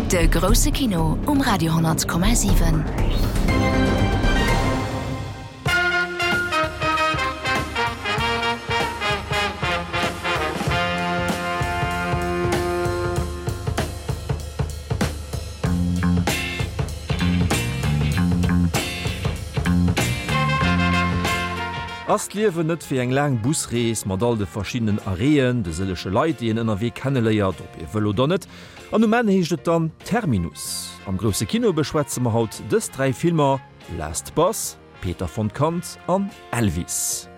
De grousse Kino um Radio 10,7. Ass d'Liewen net wéi eng laang Busrees mat all de verschiddenen Arrêten, de sëllege Leit, déi een ënnerwee kenneléiert, ob ee wëll oder net? An um Enn heescht et dann Terminus. Am grousse Kino beschwätze mer haut dës 3 Filmer, Last Bus, Peter von Kant an Elvis.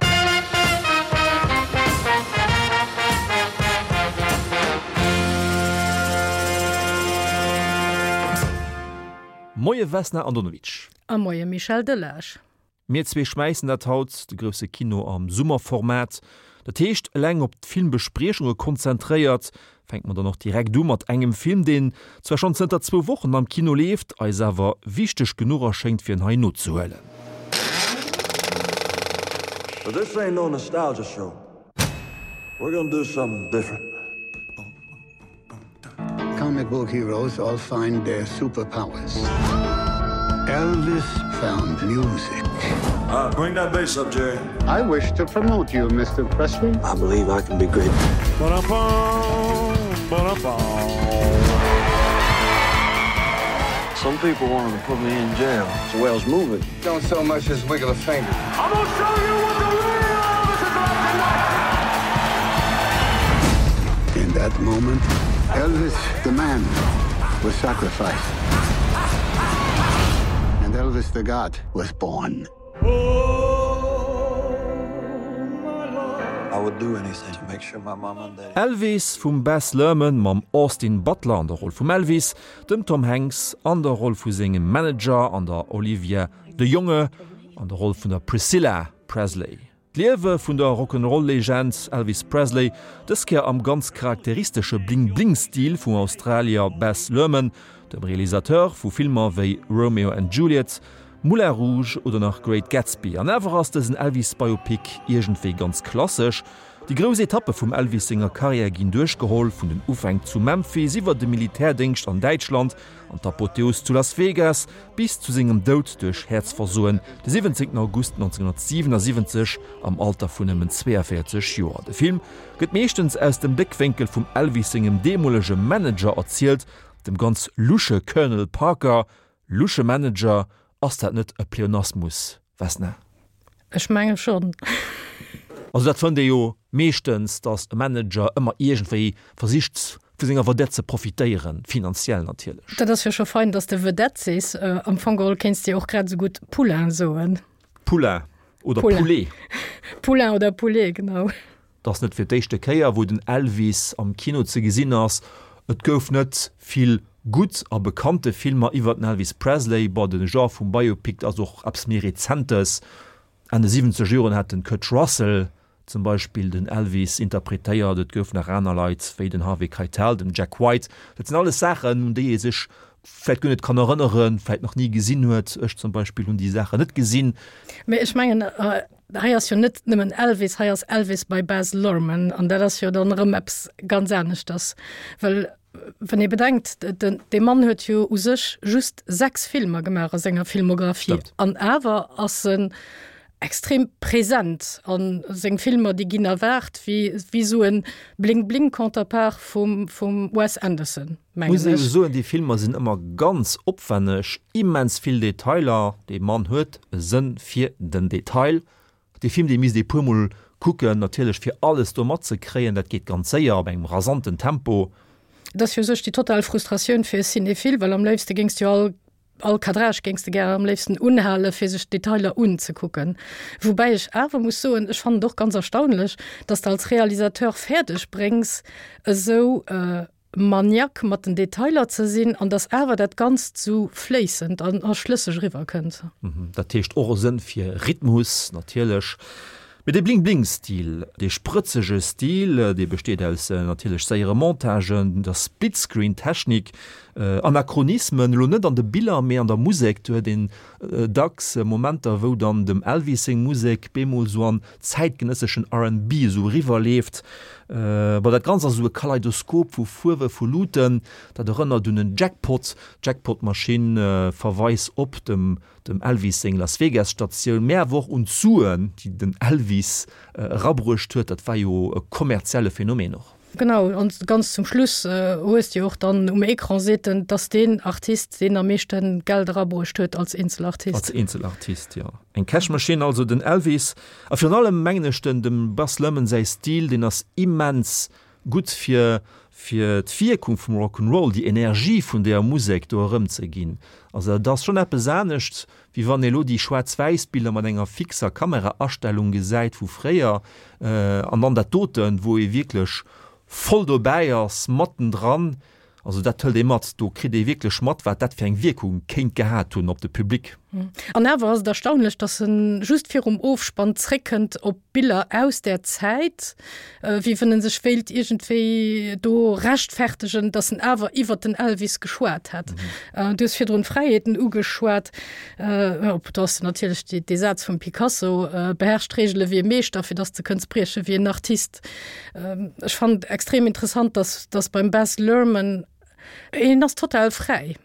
Moie Vesna Andonovic. A moie Michel Delage. Mir zwee schmäissen dat haut, de grousse Kino am Summerformat. Dat heescht, eleng op d'Filmbespriechunge konzentréiert. Fänke mer dann och direkt u mat engem Film, deen zwar schonn zënter zwou Wochen am Kino leeft, eis awer wichteg genuch erschéngt, fir en hei nozehuelen. But this ain't no nostalgia show. We're gonna do something different. Comic book heroes all find their superpowers. Elvis found music. Uh, bring that bass up, Jerry. I wish to promote you, Mr. Presley. I believe I can be great. Some people wanted to put me in jail. It's the way I was moving. Don't so much as wiggle a finger. I'm gonna show you what the real Elvis is like tonight. In that moment, Elvis, the man, was sacrificed. And Elvis the God was born. I would do anything to make sure my mom and daddy. Elvis vum Baz Luhrmann mam Austin Butler an der Roll vum Elvis, dem Tom Hanks an der Roll vu sengem Manager an der Olivia de Jonge an der Roll vun der Priscilla Presley. D'Liewe vun der Rock'n'Roll-Legend Elvis Presley, dës Kéier am ganz charakteristesche Bling-Bling-Stil vum Australier Baz Luhrmann, dem Realisateur vu Filmer wéi Romeo and Juliet, Moulin Rouge oder nach Great Gatsby. An awer ass dësen Elvis-Biopic iergendwéi ganz klassesch. Déi grouss Etappe vum Elvis senger Karriär ginn duerchgeholl, vun den Ufänk zu Memphis iwwer de Militärdéngscht an Däitschland an d'Apotheos zu Las Vegas bis zu sengem Doud duerch Häerzversoen de 17 August 1977 am Alter vun nëmmen 42 Joer. De Film gëtt meeschtens aus dem Bléckwénkel vum Elvis sengem deemolege Manager erzielt, dem ganz lusche Colonel Parker. Lusche Manager, ass dat net e Pleonasmus, Vesna? Ech menge schonn. Also dat fënnt ee jo meeschtens, datt e Manager ëmmer iergendwéi versicht vu senger Vedette ze profitéieren, finanziell natierlech. Dat ass jo scho fein, datt s de Vedette sees. Am Fong geholl kéints de jo och grad esou gutt Poulain soen. Poulain oder Poulet. Poulain oder Poulet, genau. Et ass net fir d'éischte Kéier, wou den Elvis am Kino ze gesinn ass. Et gouf net vill gutt a bekannte Filmer iwwer den Elvis Presley. Bon, de Genre vum Biopic ass och eppes méi Rezentes. Enn de siwwenzeger Joren hat den Kurt Russell zum Beispill den Elvis interpretéiert. Et gouf nach aner Leit wéi den Harvey Keitel, den Jack White. Dat sinn alles Saachen, un déi ee sech vläicht guer net kann erënneren, vläicht nach ni gesinn huet. Ech zum Beispill hunn déi Saachen net gesinn. Mee ech mengen, Hei ass jo net nëmmen Elvis, hei ass Elvis by Baz Luhrmann an dat ass jo dann erëm eppes ganz aneschters. Well wann ee bedenkt, dee Mann huet jo u sech just 6 Filmer gemaach a senger Filmographie an awer ass en extrem present an seng Filmer déi ginn erwaart wéi wéi esou e Bling-Bling-Counterpart vum vum Wes Anderson, mengen Muss ee ech. jo soen, déi Filmer sinn ëmmer ganz opwenneg, immens vill Detailer, dee Mann huet e Sënn fir den Detail. Dee Film dee misst ee puer mol kucken natierlech fir alles do matzekréien, dat geet ganz séier op engem rasanten Tempo. Et ass jo u sech déi total Frustratioun fir e Cinéphile, well am léifste géings de jo all All Cadrage géings de gären am léifsten unhalen, fir sech d'Detailer unzekucken. Woubäi ech awer muss soen, ech fannen et och ganz erstaunlech, dass de als Realisateur fäerdeg bréngs, esou maniaque mat den Detailer ze sinn an dass awer dat Ganzt esou fléissend an a schlësseg eriwwer kënnt. Dat heescht och e Sënn fir Rhythmus natierlech. Mee dee Bling-Bling-Stil, dee sprëtzege Stil, dee besteet aus natierlech séiere Montagen, der Split-Screen-Technik, Anachronismen, elo net an de Biller, mee an der Musek. Do huet een dacks Momenter, wou dann dem Elvis seng Musek bemol sou an zäitgenësseschen RnB esou eriwwerleeft. Bon, dat Ganzt ass esou e Kaleidoskop vu Fuerwe, vu Luuten. Dat erënnert un en Jackpot. D'Jackpot-Maschinn verweist op dem dem Elvis seng Las Vegas Statioun, mä awer och un d'Suen, déi den Elvis erabruecht huet. Dat war jo e kommerzielle Phänomen och. Genau, an ganz zum Schluss hues de jo och dann um Ecran seet en, dass deen Artist, deen am meeschte Geld erabruecht huet als Eenzelartist. Als Eenzelartist, jo. Eng Cash-Maschinn also, den Elvis. A virun allem mengen ech den dem Baz Luhrmann säi Stil, deen ass immens gutt fir fir d'Wierkung vum Rock 'n' Roll, déi Energie vun deeër Musek do erëmzeginn. Also dat ass schonn eppes anescht, wéi wann ee lo déi Schwaarz-Wäiss-Biller mat enger fixer Kameraastellung gesäit vu fréier an dann dat doten, wou ee wierklech voll dobäi ass, mattendran. Also dat hëlt ee mat, do kritt ee wierklech mat, wat dat fir eng Wierkung kéint gehat hunn op de Public. An awer ass et erstaunlech, datt en just virum Ofspann zréckkënnt op Biller aus där Zäit, wéi wann en sech wéilt iergendwéi do rechtfertegen, datt en awer iwwert den Elvis geschwat hätt. Du hues virdrun d'Fräiheeten ugeschwat. Op do ass natierlech dee Saz vum Picasso, Beherrsch d'Reegele wéi e Meeschter, fir datt s de kënns brieche wéi en Artist. Ech fannen extrem interessant, dass, dass beim Baz Luhrmann, hien ass total fräi.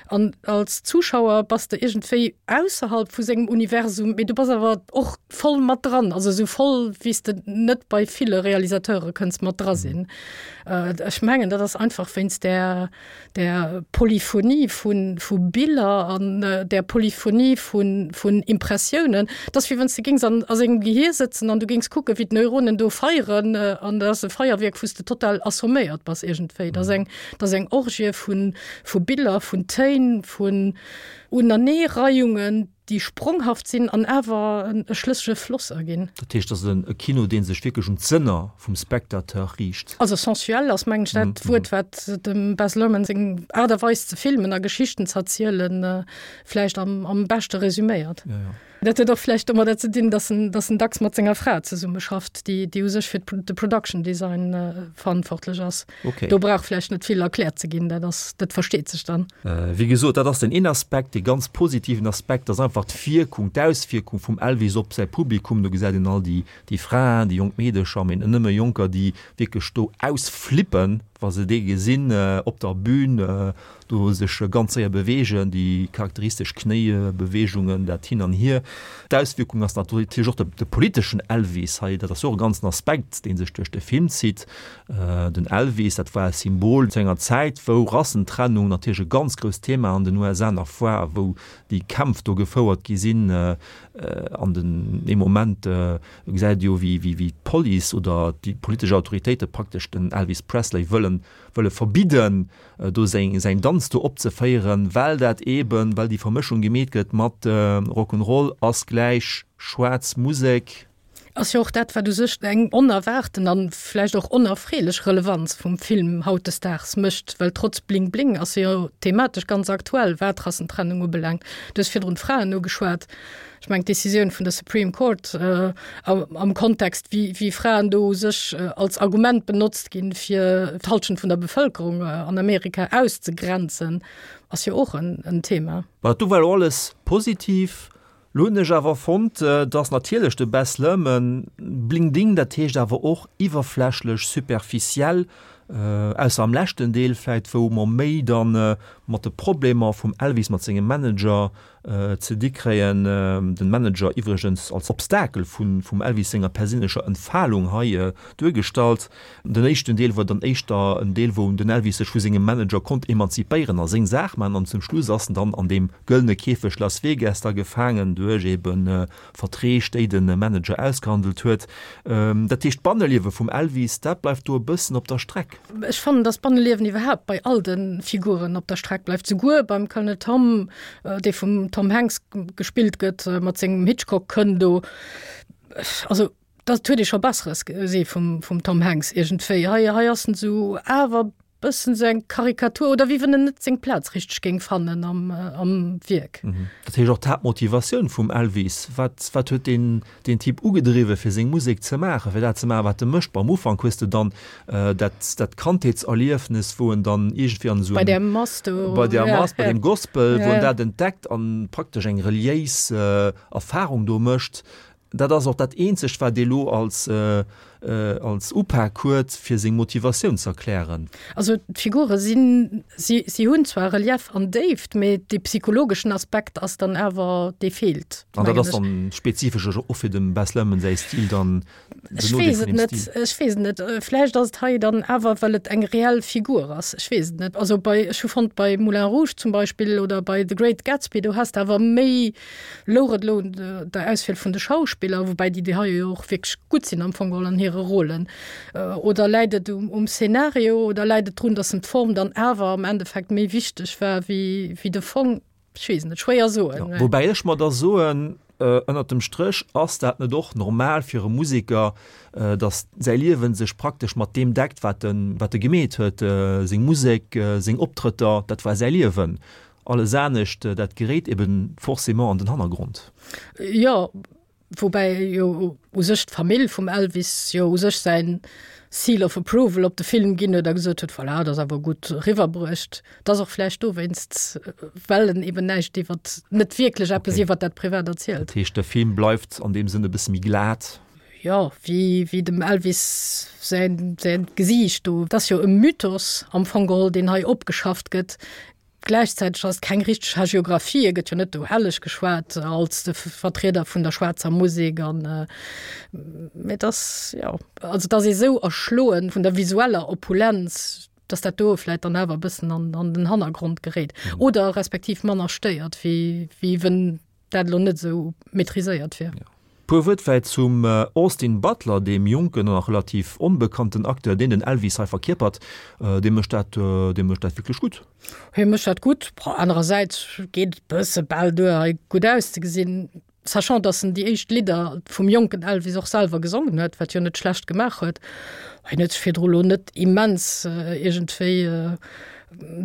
An als Zuschauer bass de iergendwéi ausserhalb vu sengem Universum, mee du bass awer och voll mat dran, also esou voll, wéi s de net bei ville Realisateure kënns mat dra sinn. Ech mengen, dat ass einfach wéinst där, der Polyphonie vu vu Biller an der Polyphonie vu vun Impressiounen. Et ass wéi wann s de géings an a sengem Gehier sëtzen an du géings kucken, wéi d'Neuronen do feieren an dat ass e Feierwierk, wou s de total assomméiert bass iergendwéi. Dat ass eng dat ass eng Orgie vu vu Biller, vun Téin, vun Unaneereiungen, déi spronghaft sinn an awer e schlëssege Floss erginn. Dat heescht, et ass e Kino, dee sech wierklech un d'Sënner vum Spectateur riicht. Also sensuell ass, mengen ech, dat Wuert, wat dem Baz Luhrmann seng Aart a Weis ze filmen a Geschichten ze erzielen, vläicht am beschte resüméiert. Dat huet och vläicht domadder ze dinn, datt en, datt en dacks mat senger Fra zesummeschafft, déi, déi u sech fir de Production Design verantwortlech ass. Okay. Do brauch vläicht net vill erkläert ze ginn, dat ass, dat versteet sech dann. Wéi gesot, dat ass den een Aspekt. Dee ganz positiven Aspekt ass einfach d'Wierkung, d'Auswierkung vum Elvis op säi Publikum. Do gesäit een all déi, déi Fraen, déi jonk Meedecher, mee net nëmme Jonker, déi wierklech do ausflippen, wa se dee gesinn op der Bühn, do sech ganz séier beweegen, déi charakteristesch Knéibeweegungen, dat Hin an Hier. D'Auswierkung ass natierlech och de politeschen Elvis hei, dat ass jo och e ganzen Aspekt, dee sech duerch de Film zitt. Den Elvis, dat war e Symbol zu enger Zäit, wou Rassentrennung natierlech e ganz grousst Thema an den USA nach war a wou déi Kämpf do gefouert gi sinn. An den ee Moment gesäit ee jo, wéi d'Police oder déi politesch Autoritéite praktesch den Elvis Presley wëllen wëlle verbidden, do säin säin Danz do opzeféieren, well dat eeben, well déi Vermëschung gemeet gëtt mat Rock'n'Roll ass gläich schwaarz Musek. Ass jo och dat, wat u sech eng onerwaarten an vläicht och onerfreelech Relevanz vum Film hautdesdaags mécht, well trotz Bling Bling ass e jo thematesch ganz aktuell, wat Rassentrennung ubelaangt. Du hues virdrun d'Fraen ugeschwat. Ech mengen, d'Decisioun vun der Supreme Court am Kontext, wéi wéi Fraen do u sech als Argument benotzt ginn, fir d'Halschent vun der Bevëlkerung an Amerika auszegrenzen, ass jo och en Thema. Mä do war elo alles positiv. Lo hunn ech awer fonnt, dass natierlech de Baz Luhrmann bling ding, dat heescht awer och iwwerflächlech, superficiell, ausser am leschten Deel vläit, wou mer méi dann mat de Problemer vum Elvis mat sengem Manager ze di kréien, den Manager iwwregens als Obstakel vum Elvis senger perséinlecher Entfalung hei duergestallt. Den éischten Deel war dann éischter en Deel, wou den Elvis sech vu sengem Manager konnt emanzipéieren a seng Saach maachen an zum Schluss ass en dann an deem gëllene Käfeg Las Vegas da gefaangen duerch ebe Verträg, déi de Manager ausgehandelt huet. Dat heescht, d'Banneliewe vum Elvis, dat bleift do e bëssen op der Streck. Ech fannen, dass d'Banneliewen iwwerhaapt bei all de Figuren op der Streck bleift, souguer beim Colonel Tom, dee vum Tom Hanks gespillt gëtt, mat sengem Hitchcock-Kënn do. Also dat huet ee scho Besseres gesi vum, vum Tom Hanks iergendwéi. Hei, hei ass en esou awer bëssen esou eng Karikatur oder wéi wann en net seng Plaz richteg géing fannen am, am Wierk. Dat heescht och d'Haaptmotivatioun vum Elvis, wat, wat huet deen, deen Typ ugedriwwen, fir seng Musek ze maachen, fir dat ze maachen, wat e mécht? Bon, am Ufank hues de dann dat, dat Kandheetserliefnes, wou en dann iergendwéi an esou Bei där Mass do. Bei där Mass, bei deem Gospel, wou en dat entdeckt an praktesch eng reliéis Erfarung do mécht. Dat ass och dat eenzegt, wat ee lo als. Als Upak huet, fir seng Motivatioun ze erklären. Also d'Figure sinn, si, si hunn zwar Relief an Déift, mee dee psychologeschen Aspekt ass dann awer, dee feelt. An dat ass dann spezifesch och fir dem Baz Luhrmann säi Stil dann, den Ech weess et net, ech weess et net. Vläicht ass et hei dann awer, well et eng reell Figur ass, ech weess et net. Also bei, ech hu fonnt bei Moulin Rouge zum Beispill oder bei The Great Gatsby, do has de awer méi, Louch et elo un der Auswiel vun de Schauspiller, woubäi déi déi hei jo och wierklech gutt sinn am Fong geholl an hire Rôlen, oder läit et um Szenario oder läit et drun, datt em d'Form dann awer am Endeffekt méi wichteg war wéi de Fong? Ech weess et net, schwéier soen. Woubäi ech mer da soen, ënnert dem Stréch, ass dat net och normal fir e Museker, datt säi Liewen sech praktesch mat deem deckt, wat e gemeet huet, seng Musek, seng Optrëtter, dat war säi Liewen. Alles anescht, dat geréit eben forcément an den Hannergrond. Jo, woubäi jo u sech d'Famill vum Elvis jo u sech säin Seal of Approval op de Film ginn huet a gesot huet, voilà, dat ass awer gutt eriwwerbruecht. Et ass och vläicht dowéinst, well en eben näischt iwwert, net wierklech eppes iwwert dat Privat erzielt. Dat heescht, de Film bleift an deem Sënn e bësse méi glat? Jo, wéi, wéi dem Elvis säin, säin Gesiicht do. Et ass jo e Mythos am Fong geholl, deen hei opgeschafft gëtt. Gläichzäiteg ass et keng richteg Hagiographie, e gëtt jo net do helleg geschwat als de Vertrieder vun der schwaarzer Musek an mee et ass, jo, also et ass ee sou erschloen vun der visueller Opulenz, datt dat do vläit dann awer e bëssen an an den Hannergrond geréit oder respektiv manner stéiert, wéi wéi wenn dat elo net esou maîtriséiert wier. Puer Wuert vläit zum Austin Butler, deem jonken an nach relativ onbekannten Acteur, deen den Elvis hei verkierpert. Dee mécht dat, dee mécht dat wierklech gutt. Hie mécht dat gutt. Anerersäits geet et bësse bal duer, hei gutt auszegesinn, sachant dass en déi éischt Lidder vum jonken Elvis och selwer gesongen huet, wat jo net schlecht gemaach huet. Hien huet sech virdru lo net immens iergendwéi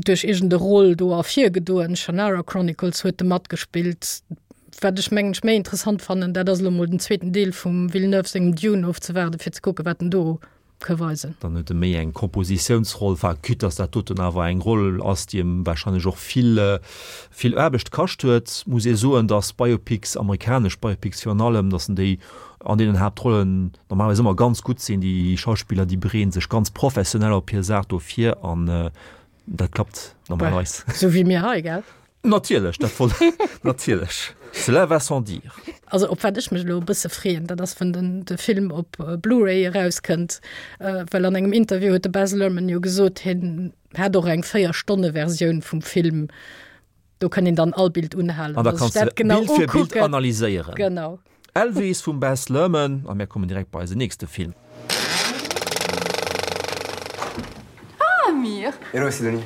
duerch iergend e Rôle do ervirgedoen. Shannara Chronicles huet e matgespillt. Wat ech mengen ech méi interessant fannen, dat ass elo mol den zweeten Deel vum Villeneuve sengem Dune ofzewaarden, fir ze kucken, wat en do ka weisen. Dann huet e méi eng Kompositiounsroll, enfin quitte dass dat doten awer eng Roll ass, déi em wahrscheinlech och vill, vill Aarbecht kascht huet, muss ee soen, dass Biopics, amerikanesch Biopics virun allem, dass en déi an deenen Haaptrollen normalerweis ëmmer ganz gutt sinn. Déi Schauspiller, déi bereeden sech ganz professionell op hir Saach do vir an dat klappt normalerweis. Sou wéi mir hei, gell? Natierlech, dat wollt natierlech. Cela va sans dire. Also op wat ech mech elo e bësse freeën, dat ass wann den de Film op Blu-ray erauskënnt, well an engem Interview huet de Baz Luhrmann jo gesot, hien hätt och eng 4 Stonne Versioun vum Film, do kann een dann all Bild unhalen An da a sech kanns de dat genau Bild fir Bild ukucken. analyséieren. Genau. Elvis vum Baz Luhrmann a mir kommen direkt bei eisen nächste Film. Ah, Amir! Hello Sidonie.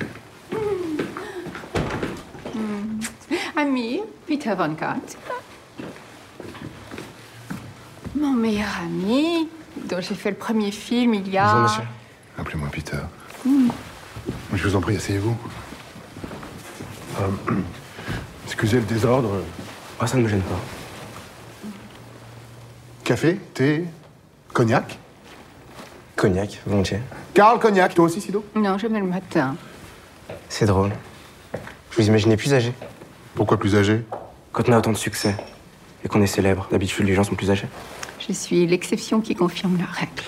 Amir, Peter von Kant. Mon meilleur ami, dont j'ai fait le premier film il y a... Bonjour monsieur. Appelez-moi Peter. Mm. Je vous en prie, asseyez-vous. Euh, excusez le désordre. Ah, ça ne me gêne pas. Café, thé, cognac Cognac, volontiers. Karl, cognac, toi aussi, Sido Non, jamais le matin. C'est drôle. Je vous imaginais plus âgé. Pourquoi plus âgé Quand on a autant de succès et qu'on est célèbre, d'habitude les gens sont plus âgés. Je suis l'exception qui confirme la règle.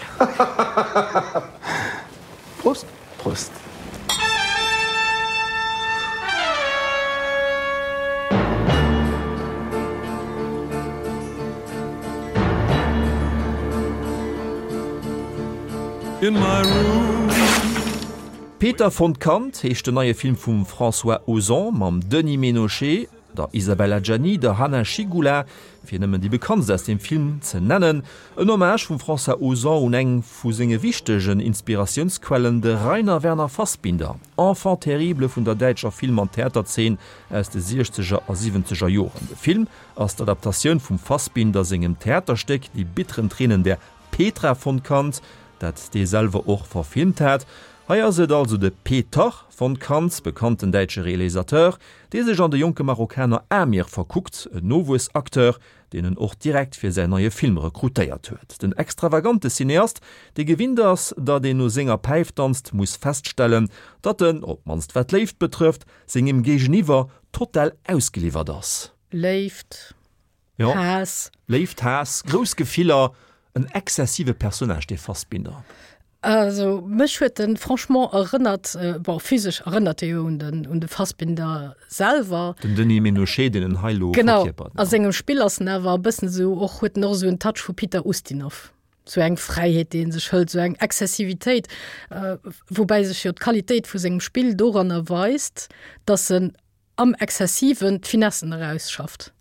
Prost Prost. In my room. Peter von Kant heescht den neie Film vum François Ozon mam Denis Ménochet, der Isabelle Adjani, der Hanna Schygulla, fir nëmmen déi bekanntst aus dem Film ze nennen. En Hommage vum François Ozon un eng vu senge wichtegen Inspiratiounsquellen, de Rainer Werner Fassbinder, Enfant terrible vun der däitscher Film an Theaterzeen aus de siechzeger a siwwenzeger Joren. De Film ass d'Adaptatioun vum Fassbinder sengem Theaterstéck Die bitteren Tränen der Petra von Kant, dat dee selwer och verfilmt hat. Hei ass et also de Peter von Kant, bekannten däitsche Realisateur, dee sech an de jonke Marokkaner Amir verkuckt, en Nowuessacteur, deen en och direkt fir säin neie Film rekrutéiert huet. Den extravagante Cineast, dee gewinnt ass, datt een no senger Päif danzt, muss feststellen, datt en, op d'mannst wat d'Léift betrëfft, sengem Géigeniwwer total ausgeliwwert ass. Léift, Jo. Haass. Léift, Haass, grouss Gefiller. En exzessive Personnage, dee Fassbinder. Also mech huet en franchement erënnert, bon physesch erënnert e jo un den un de Fassbinder selwer. Den Denis Ménochet, deen en hei elo verkierpert. Genau, a sengem Spill ass en awer e bëssen esou och, huet en och esou en Touch vu Peter Ustinov. Sou eng Fräiheet, déi en sech hëlt, sou eng Exzessivitéit, woubäi sech jo d'Qualitéit vu sengem Spill doranner weist, datt en am Exzessiven d'Finessen erausschafft.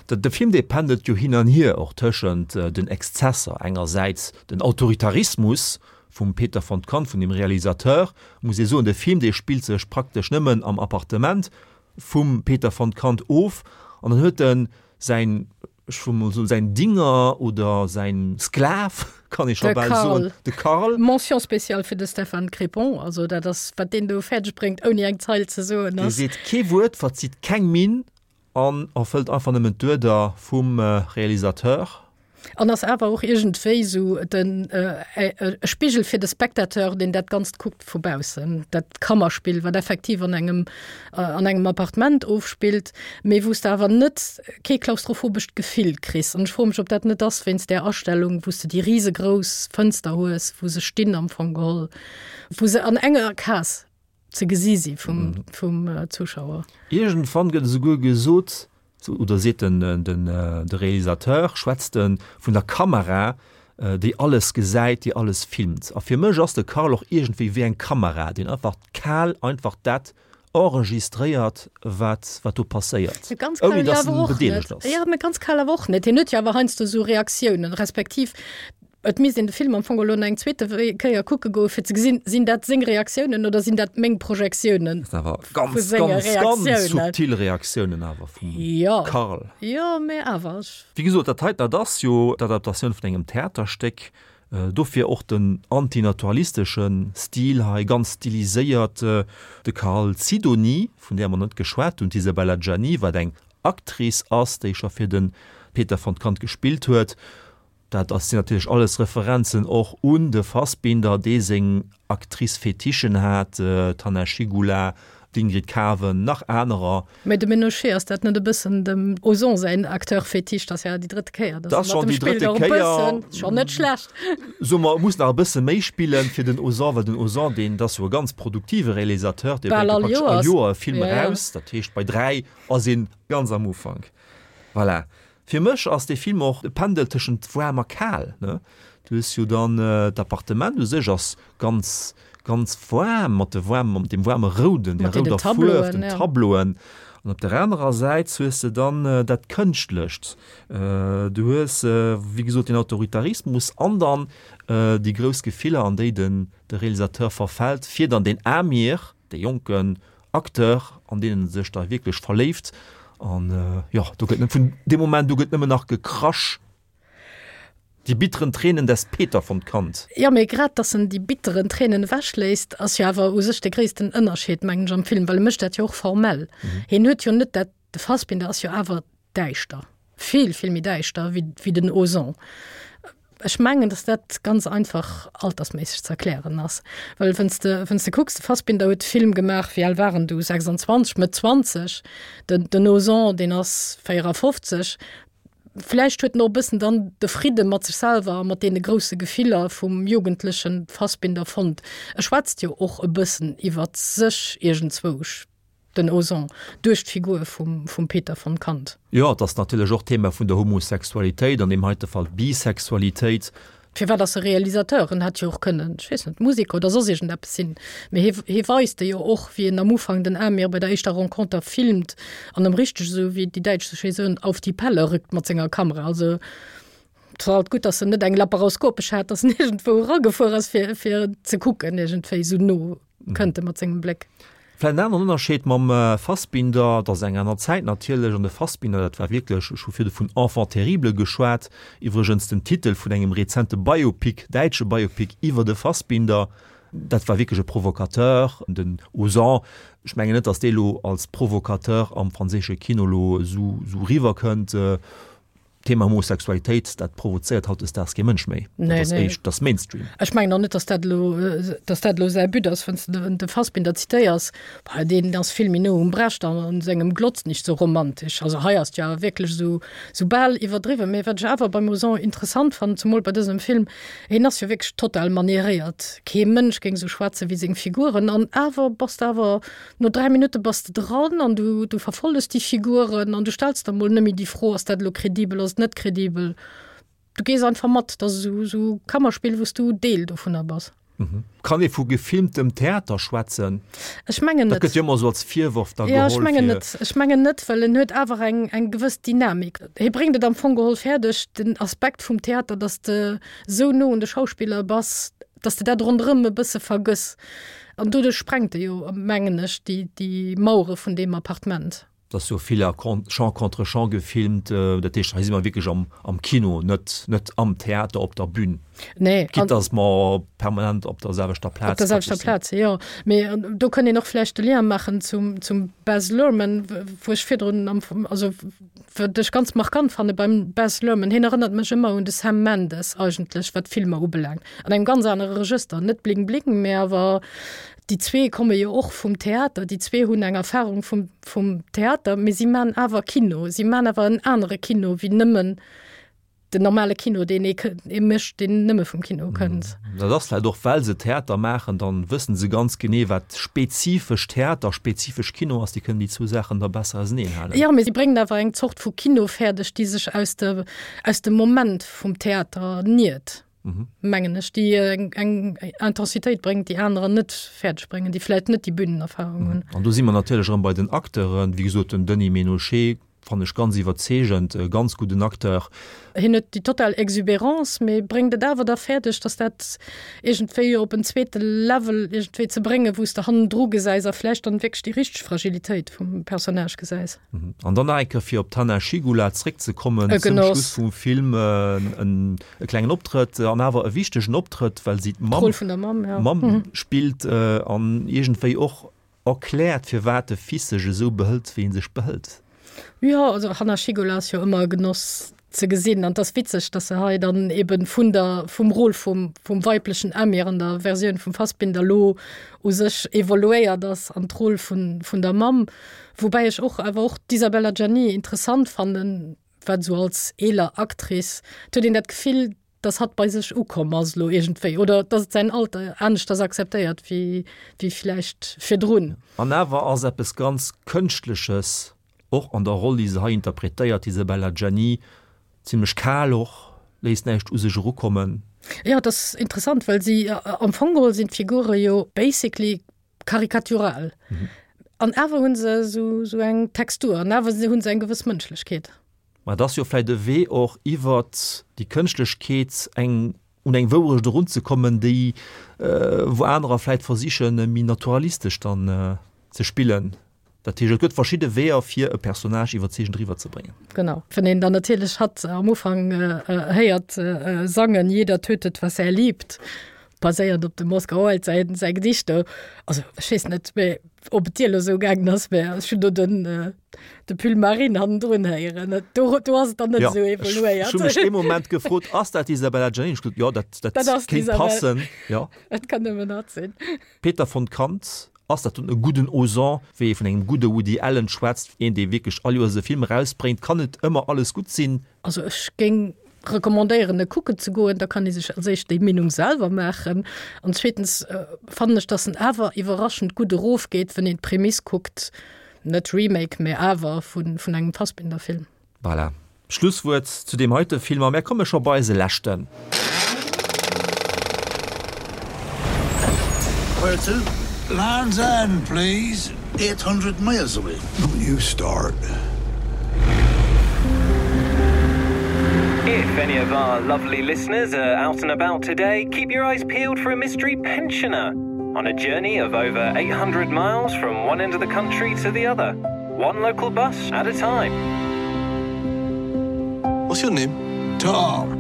De Film dee pendelt jo hin an hier och tëschent den Exzesser, engersäits den Autoritarismus vum Peter von Kant, vun dem Realisateur, muss ee soen, de Film dee spillt sech praktesch nëmmen am Appartement vum Peter von Kant of an dann huet en säin ech wëll mol soen, säin Dinger oder säin Sklav, kann ee scho bal soen, de Karl. Mention spéciale fir de Stefan Crepon, also dat ass, wat deen do fäerdeg bréngt, ouni eng Zeil ze soen, ass. Dee seet kee Wuert, verzitt keng Minn an erfëllt einfach nëmmen d'Uerder vum Realisateur. An ass awer och iergendwéi esou den e Spigel fir de Spectateur, deen dat Ganzt kuckt vu baussen. Dat Kammerspill, wat effektiv an engem an engem Appartement ofspillt, mee wou s de awer net kee klaustrophobescht Gefill kriss. An ech froe mech, ob dat net ass wéinst där Astellung, wou s de déi risegrouss Fënster hues, wou se stinn am Fong geholl, wou se an enger Case ze gesi si vum, vum Zuschauer. Iergendwann gëtt esouguer gesot, oder seet den, den, de Realisateur, schwätzt e vun der Kamera, déi alles gesäit, déi alles filmt. A fir mech ass de Karl och iergendwéi wéi eng Kamera, deen einfach kal einfach dat enregistréiert, wat, wat do passéiert, Ganz kal ouni dass en bedeelegt ass. Jo, mä ganz kal awer och net. Hien huet jo awer heiansdo esou Reaktiounen, respektiv Et misst een de Film am Fong elo nach eng zweete Kéier kucke goe fir ze gesinn, sinn dat seng Reaktiounen oder sinn dat meng Projektiounen Dat sinn awer vu ganz, senge ganz, ganz Reaktiounen. subtil Reaktiounen awer vum Jo, Karl. jo, mä awer, ech. Wéi gesot, dat heiten, dat ass jo d'Adaptatioun vun engem Theaterstéck, dofir och den antinaturalistesche Stil hei, ganz stiliséiert. De Karl Sidonie, vun där mer net geschwat hunn, d'Isabella Gianni, wat eng Actrice ass, déi scho fir de Peter von Kant gespillt huet, Dat ass sinn natierlech alles Referenzen och un de Fassbinder, dee seng Actrice-Fetichen hat, d'Hanna Schygulla, d'Ingrid Caven, nach anerer. Mä de Ménochet, ass dat net e bëssen dem Ozon säin Acteur-Fetiche? Dat ass ja déi drëtte Kéier, datt e mat em spillt, och e bëssen, schonn net schlecht. Soe mer, e muss nach e bësse méi spillen fir den Ozon, well den Ozon, deen, dat ass jo e ganz produktive Realisateur, dee bréngt jo praktesch all Joer e Film eraus. Dat heescht, bei 3 ass een ganz am Ufank. Voilà. Fir mech ass dee Film och e Pendel tëschent waarm a kal, ne? Du hues jo dann d'Appartement u sech ass ganz, ganz waarm mat de waarm, mat deem waarme Rouden, der rouder Fuerf, den Tableauen. An op der anerer Säit hues de dann dat Kënschtlecht. Du hues, wéi gesot, den Autoritarismus an dann déi grouss Gefiller, an déi den de Realisateur verfält, fir dann den Amir, dee jonken Acteur, an deen en sech da wierklech verléift. An jo, do gëtt vun deem Moment u gëtt nëmmen nach gekrasch. Die bitteren Tränen des Peter von Kant. Jo, mee grad dass en déi bitteren Tränen ewechléisst, ass jo awer u sech de gréissten Ënnerscheed, mengen ech, am Film, well e mécht dat jo och formell. Hien huet jo net dat, de Fassbinder ass jo awer däischter, vill, vill méi däischter wéi, wéi den Ozon. Ech mengen, dass dat ganz einfach altersméisseg ze erklären ass. Well wann s de, wann s de kucks, de Fassbinder huet de Film gemaach, wéi al war en du, 26, Mëtt 20, den, den Ozon, deen ass 54. Vläicht huet en och e bëssen dann de Fridde mat sech selwer a mat deene grousse Gefiller vum jugendleche Fassbinder fonnt. E schwätzt jo och e bëssen iwwer sech iergendzwousch. Den Ozon, duerch d'Figur vum vum Peter von Kant. Jo, et ass natierlech och d'Thema vun der Homosexualitéit, an deem heite Fall d'Bisexualitéit. Firwat ass e Realisateur? En hätt jo och kënnen, ech weess net, Museker oder soss iergendeppes sinn. Mee hie hie weist e jo och, wéi en am Ufank den Amir bei der éischter Renconter filmt an em richteg, esou wéi déi Däitsch sou schéi soen, auf die Pelle rückt mat senger Kamera. Also et war alt gutt, datt en net eng laparoskopesch hat, datt en iergendwou eragefuer ass, fir fir ze kucken iergendwéi esou no. Kënnt e mat sengem Bléck. Vläicht en aneren Ënnerscheed mam Fassbinder, et ass eng aner Zäit natierlech, an de Fassbinder, dat war wierklech, ech hu virdu vun Enfant terrible geschwat, iwwregens den Titel vun engem rezente Biopic, däitsche Biopic iwwer de Fassbinder, dat war wierklech e Provocateur, den Ozon, ech mengen net, datt dee lo als Provocateur am franséische Kino lo esou eriwwerkënnt. D'Thema Homosexualitéit, dat provozéiert hautdesdaags kee Mënsch méi. Nee, Dat ass nee. éischt, dat ass Mainstream. Ech mengen och net, dass dat elo, dass dat elo säi But ass, wann s de den de Fassbinder zitéiers, bah, deen ass vill méi no um Brecht an an sengem Glotz nicht so romantisch. Also hei ass et jo awer wierklech esou, esou bal iwwerdriwwen. Mee wat ech awer beim Ozon interessant fannen, zemol bei dësem Film, hien ass jo wierklech total manieréiert. Kee Mënsch géing esou schwätze wéi seng Figuren an awer bass de awer No 3 Minutte bass de dran an du, du verfolles déi Figuren an du stells der mol nëmme déi Fro, ass dat elo kredibel, ass et net kredibel? Du gees einfach mat, dat ass esou, esou Kammerspill, wou s du Deel dovunner bass. Kann ee vu gefilmtem Theater schwätzen? Ech mengen Dat net. gëtt jo ëmmer esou als Virworf da Jo, ech geholl mengen fir. net. Ech mengen net, well en huet awer eng, eng gewëss Dynamik. Hie bréngt et am Fong geholl fäerdeg, den Aspekt vum Theater, datt s de esou no un de Schauspiller bass, dass de dat ronderëm e bësse vergëss. An doduerch sprengt e jo, mengen ech, déi, déi Mauere vun deem Appartement. Et ass jo vill a Champ contre Champ gefilmt, dat heescht, hei si mer wierklech am, am Kino, net, net am Theater op der Bühn. Nee. Quitte dass mer permanent op der selwechter Plaz Op der selwechter praktesch sinn. Plaz, jo. Mee do kënnt een och vläicht de Lien maachen zum, zum Baz Luhrmann, wou ech virdrun am, also Wat ech ganz markant fanne beim Baz Luhrmann, hien erënnert mech ëmmer un de Sam Mendes eigentlech, wat d'Filmer ubelaangt. An engem ganz anere Regëster, net Bling Bling, mä awer déi zwee komme jo och vum Theater, déi zwee hunn eng Erfarung vum, vum Theater, mee si man awer Kino, si man awer en anere Kino wéi nëmmen Den normale Kino, deen ee ee mécht, deen nëmme vum Kino kënnt. Dat ass vläicht och, well se Theater maachen, dann wëssen se ganz genee, wat spezifesch Theater, spezifesch Kino ass. Déi kënnen déi zwou Saachen da besser auseneen halen. Jo, mee si bréngen awer eng Zort vu Kino fäerdeg, déi sech aus de aus dem Moment vum Theater niert, mengen ech, déi eng eng Intensitéit bréngt, déi anerer net fäerdeg bréngen, déi vläicht net déi Bünenerfahrung hunn. An do si mer natierlech erëm bei den Acteuren. Wéi gesot, den Denis Ménochet Fannen ech ganz iwwerzeegend, e ganz gudden Acteur. Hien huet déi total Exubérance, mee bréngt et awer da fäerdeg, dass dat iergendwéi op en zweete Level iergendwéi ze bréngen, wou s de hannendru gesäis a vläicht dann wierklech déi richteg Fragilitéit vum Personnage gesäis. An dann nach eng Kéier fir op d'Hanna Schygulla zréckzekommen, E zum Genoss. Schluss vum Film e klengen Optrëtt an awer e wichtegen Optrëtt, well si d'Mamm D'Roll vun der Mamm, ja. Mamm spillt an iergendwéi och Erkläert, firwat de Fils sech esou behëlt, wéi en sech behëlt. Jo, also Hanna Schygulla ass jo ëmmer e Genoss ze gesinn an et ass witzeg, dass se hei dann eben vun der, vum Rôle vum, vum weiblechen Amir an der Versioun vum Fassbinder elo u sech evoluéiert ass an d'Roll vun, vun der Mamm. Woubäi ech och awer och d'Isabelle Adjani interessant fannen, wat esou als eeler Actrice, et huet een dat Gefill, dass hatt bei sech ukomm ass elo iergendwéi oder dass et säin Alter aneschters akzeptéiert wéi wéi vläicht virdrun. An awer ass eppes ganz Kënschtleches och an der Roll, déi se hei interpretéiert, d'Isabelle Adjani, zimmlech kal och, léisst näischt u sech erukommen. Jo, et ass interessant, well si am Fong geholl sinn d'Figure jo basically karikatural an awer hu se esou eng Textur an awer hu se eng gewëss Mënschlechkeet. Mä et ass jo vläicht e Wee och iwwert déi Kënschtlechkeet eng un eng Wourecht erunzekommen, déi wou anerer vläicht versichen méi naturalistesch dann ze spillen. Dat heescht, et gëtt verschidde Weeër fir e Personnage iwwerzeegend eriwwerzebréngen. Genau. Wann een dann natierlech hatt am Ufank héiert sangen, Jeder tötet, was er liebt, baséiernd op dem Oscar Wilde säi säi Gedicht do, also ech weess net, mä ob et dir elo esou gaangen ass, mä ech hunn do den de Pull Marine hannendrun héieren. Do do ass et dann net Ja, esou ech evoluéiert. ech hu mech ee Moment gefrot, ass dat d'Isabella Giannini? Ech gesot, jo, dat dat Dat ass kéint d'Isabelle. passen, jo. Et kann nëmmen hatt sinn. Peter von Kant, Ass dat dunn e gudden Ozon, wéi ee vun engem gudde Woody Allen schwätzt, een dee wierklech all Joers e Film erausbréngt, kann net ëmmer alles gutt sinn. Also ech géing recommandéieren e kucken ze goen, da kann ee sech als éischt déi Meenung selwer maachen an zweetens fannen ech, datt en awer iwwerraschend gutt erofgeet, wann een d'Prämiss kuckt, net Remake, mä awer vun engem Fassbinder-Film. Voilà. Schlusswuert zu deem heite Film a mär komme scho bei eise leschten. Where to? Land's End, please. 800 miles away. Don't you start. If any of our lovely listeners are out and about today, keep your eyes peeled for a mystery pensioner on a journey of over 800 miles from one end of the country to the other. One local bus at a time. What's your name? Tom.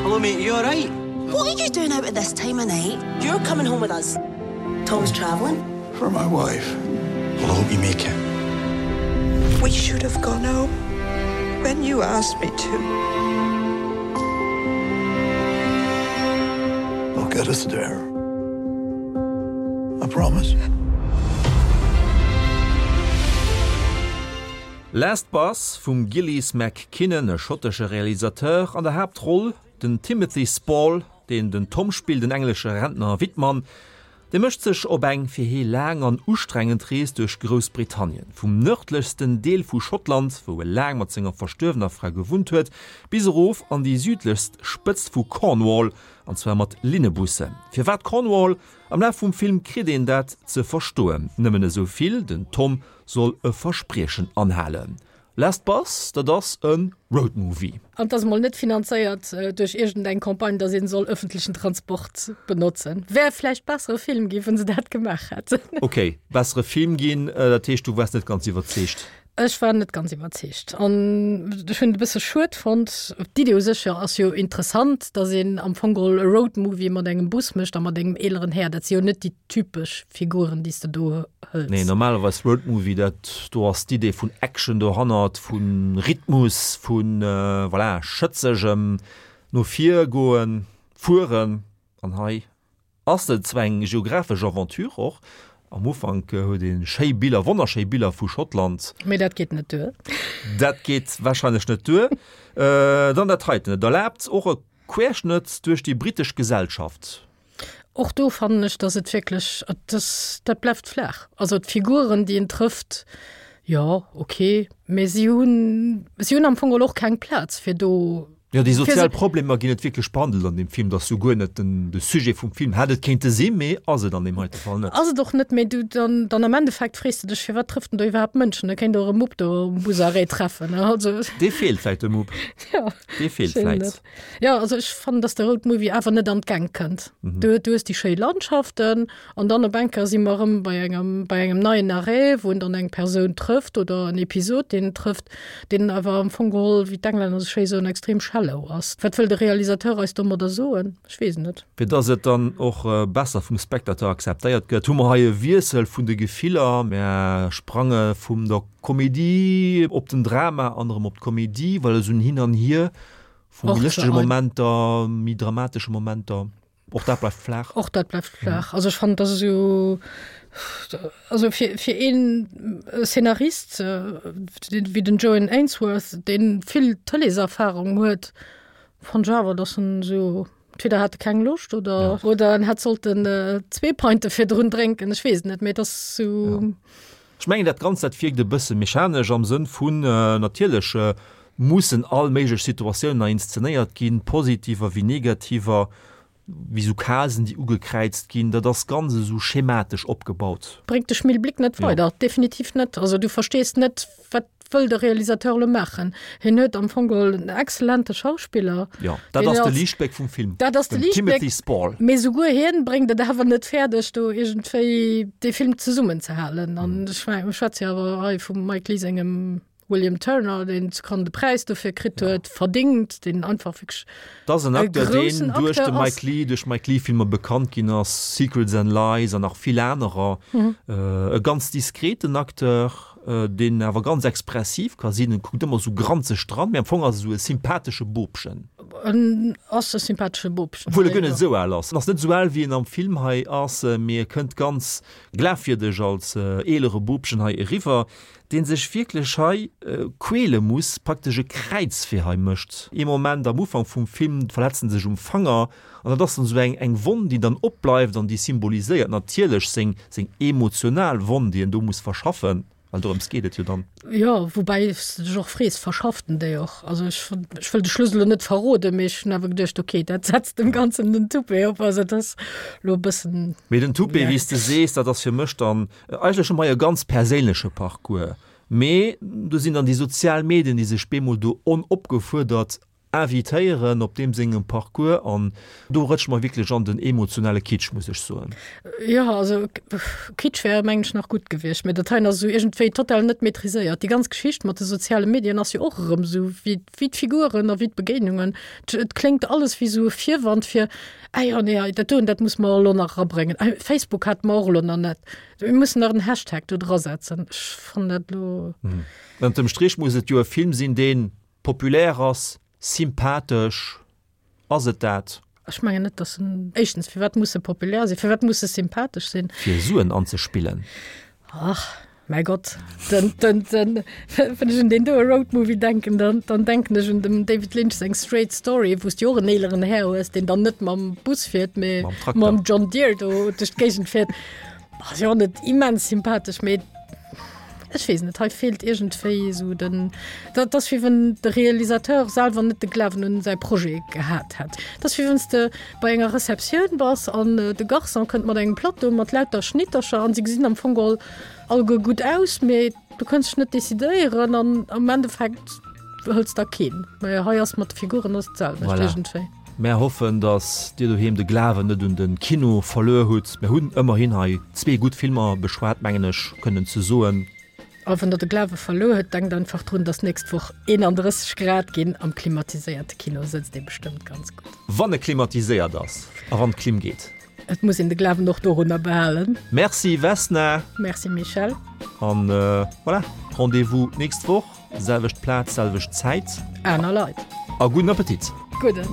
Hello, mate. You all right? What are you doing out at this time of night? You're coming home with us. Tom's traveling. For my wife. Well, I hope you make it. We should have gone home when you asked me to. I'll get us there. I promise. Last Bus vum Gillies MacKinnon, e schottesche Realisateur, an der Haaptroll den Timothy Spall, deen den Tom spillt, en englesche Rentner a Wittmann. Dee mécht sech op eng fir hee laang an ustrengend Rees duerch Groussbritannien, vum nërdlechsten Deel vu Schottland, wou e laang mat senger verstuerwener Fra gewunnt huet, bis erof an déi südlechst Spëtzt vu Cornwall, an zwar mat Linnebussen. Firwat Cornwall? Am Laf vum Film kritt een dat ze verstoen, nëmmen esou vill, den Tom soll e Verspriechen anhalen. Last Bus, dat ass e Roadmovie. An 't ass emol net finanzéiert duerch iergend eng Campagne, dass een soll öffentlechen Transport benotzen. Wär vläicht bessere Film ginn, wann se dat gemaach hätten. Ok, bessere Film ginn, dat heescht du waars net ganz iwwerzeegt? Ech war net ganz iwwerzeegt an ech hunn et e bësse schued fonnt. D'Idee u sech jo ass jo interessant, dass een am Fong geholl e Roadmovie mat engem Bus mécht a mat engem eeleren Här. Dat si jo net déi typesch Figuren, déi s de do hëls. Nee, normalerweis Roadmovie, dat do ass d'Idee vun Action dohannert, vu Rhythmus, vu voilà, schëtzegem no vir goen, fueren. An hei ass et zwar eng geographesch Aventure och, am Ufank huet ee schéi Biller, wonnerschéi Biller vu Schottland. Mee dat geet net duer. Dat geet warscheinlech net duer. Dann dat heiten, et erlaabt och e Querschnëtt duerch déi brittesch Gesellschaft. Och do fannen ech, dass et wierklech, dass dat bleift flaach. Also d'Figuren, déi en trëfft, jo, ok, mä si hunn, si hunn am Fong geholl och keng Plaz fir do. Jo, déi sozial Problemer ginn net wierklech behandelt an deem Film. Dat ass jo guer net den, de Sujet vum Film. Hätt et kéinte sinn, mee ass et an deem heite Fall net. Ass et och net, mee du, dann, dann am Endeffekt frees de dech, firwat trëfft en do iwwerhaapt Mënschen? E kéint och e Mupp do um Busarrêt treffen, ne? Also. Dee feelt vläicht, de Mupp. Jo. Dee feelt vläicht. Jo, also ech fannen, dass de Road Movie awer net an d'Gäng kënnt. Mhm. Du, du hues déi schéi Landschaften an dann op eng Kéier si mer erëm bei engem, bei engem neien Arrêt, wou en dann eng Persoun trëfft oder en Episod, deen en trëfft, deen awer am Fong geholl, wéi d'Englänner esou schéi soen, extrem shallow ass. Wat wëll de Realisateur eis domadder soen? Ech weess et net. Fir dass et dann och besser vum Spectateur akzeptéiert gëtt, hu mer hei e Wiessel vun de Gefiller. Mär sprange vum der Komedie op den Drama an erëm op d'Komedie, well esou en Hin an Hier vu méi lëschtege Momenter, méi dramatesche Momenter, och dat bleift flaach. Och dat bleift flaach. Also ech fannen, dass esou, also fir, fir een Szenarist wéi den Joan Ainsworth, dee vill Tëleeserfarung huet, fannen ech awer, dass en esou, entweder hat e keng Loscht oder, oder en hätt sollten zwee Pinte virdrun drénken, ech weess et net, mee et ass esou. Ech mengen, dat Ganzt, dat wierkt e bësse mechanesch am Sënn vun, natierlech mussen all méiglech Situatiounen hei inszenéiert ginn, positiver wéi negativer, wéi esou Casen, déi ugekräizt ginn. Dat ass ganz esou schematesch opgebaut. Bréngt de Schmilblick net weider, definitiv net. Also du verstees net, wat wëll de Realisateur elo maachen? Hien huet am Fong geholl en excellente Schauspiller. Jo, dat ass de Liichtbléck vum Film. Dat ass de Liichtbléck. Timothy Spall. Mee souguer hien bréngt et awer net fäerdeg, do iergendwéi dee Film zesummenzehalen. An ech schwätze jo awer hei vum Mike Leigh sengem William Turner, deen zu Cannes de Präis dofir kritt huet, verdingt, deen einfach wierklech Dat ass en Acteur, deen duerch de Mike Leigh, duerch Mike Leigh-Filmer bekannt ginn ass, Secrets and Lies an nach vill anerer. E ganz diskreten Acteur, deen awer ganz expressiv ka sinn. En kuckt ëmmer esou granzeg dran, mee am Fong ass e esou e sympathesche Bobchen. En ass e sympathesche Bobchen. Obwuel e guer net esou al ass. En ass net esou al, wéi en am Film hei ass, mee e kënnt ganz glafwierdeg als eelere Bobchen hei eriwwer. deen sech wierklech hei quäle muss, praktesch e Kräizwee hei mécht. Ee Moment am Ufank vum Film verletzt en sech um Fanger an dat ass dann esou eng eng Wonn, déi dann opbleift an déi symboliséiert natierlech seng seng emotional Wonn, déi en do muss verschaffen, well dorëms geet et jo dann. Jo, woubäi s de dech och frees, verschafft en déi och? Also ech ech wëll de Schluss elo net verroden, mee ech hunn awer geduecht, okay, dat setzt dem Ganzen den Toupet op. Also dat ass elo e bëssen. Mee den Toupet, wéi s de sees, dat ass fir mech dann Eigentlech hu mer hei e ganz perséinleche Parcours, mee do sinn dann déi sozial Medien, déi sech bemol do onopgefuerdert. invitéieren op deem sengem Parcours an do rëtsche mer wierklech an den emotionale Kitsch, muss ech soen. Jo, also Kitsch wär mengen ech nach gutt gewiescht, mä dat heien ass esou iergendwéi total net maîtriséiert. Déi ganz Geschicht mat de soziale Medien ass jo och erëm esou wéi wéi d'Figuren a wéi d'Begéinungen. Et kléngt alles wéi esou e Virwand fir, ah jo, nee, dat doen, dat musse mer elo nach erabréngen. Ah, Facebook hate mer och elo nach net. Mir mussen nach en Hashtag do drasetzen. Ech fannen dat elo. Ënnert dem Strich muss et jo e Film sinn, dee populär ass, sympathesch. Ass et dat? Ech mengen net, dass en, éischtens, firwat muss e populär sinn? Firwat muss e sympathesch sinn? Fir Suen anzespillen. Ach, mäi Gott, den, den, den, wann ech un deen doe Roadmovie denken, dann, dann denken ech un dem David Lynch seng Straight Story, wou s de och en eeleren Här hues, deen dann net mam Bus fiert, mee Mam Trakter. mam John Deere do duerch d'Géigend fiert. Ass jo och net immens sympathesch, mee ech weess net, hei feelt iergendwéi esou den, dat ass wéi wann de Realisateur selwer net de Glawen un säi Projet gehat hätt. Dat ass wéi wann s de bei enger Receptioun bass an de Garçon kënnt mat engem Plateau mat lauter Schnittercher an se gesinn am Fong geholl alleguer gutt aus, mee du kënns dech net decidéieren an am Endeffekt hëls der keen. Mä hei ass mat de Figuren ass d'selwecht Voilà. iergendwéi. Mär hoffen, dass Dir doheem de Glawen net un de Kino verluer hutt. Mär hunn ëmmerhin hei zwee gutt Filmer beschwat, mengen ech kënnen ze soen. A wann Der de Glawe verluer hutt, denkt einfach drun, dass nächst Woch 31 Grad ginn. Am klimatiséierte Kino sëtzt ee bestëmmt ganz gutt. Wann e klimatiséiert ass a wann d'Klim geet. Et muss een de Glawen och dorunner behalen. Merci Vesna. Merci Michèle. An voilà, Rendez-vous d'nächst Woch, selwecht Plaz, selwecht Zäit. Aner Leit. A gudden Appetit. Gudden.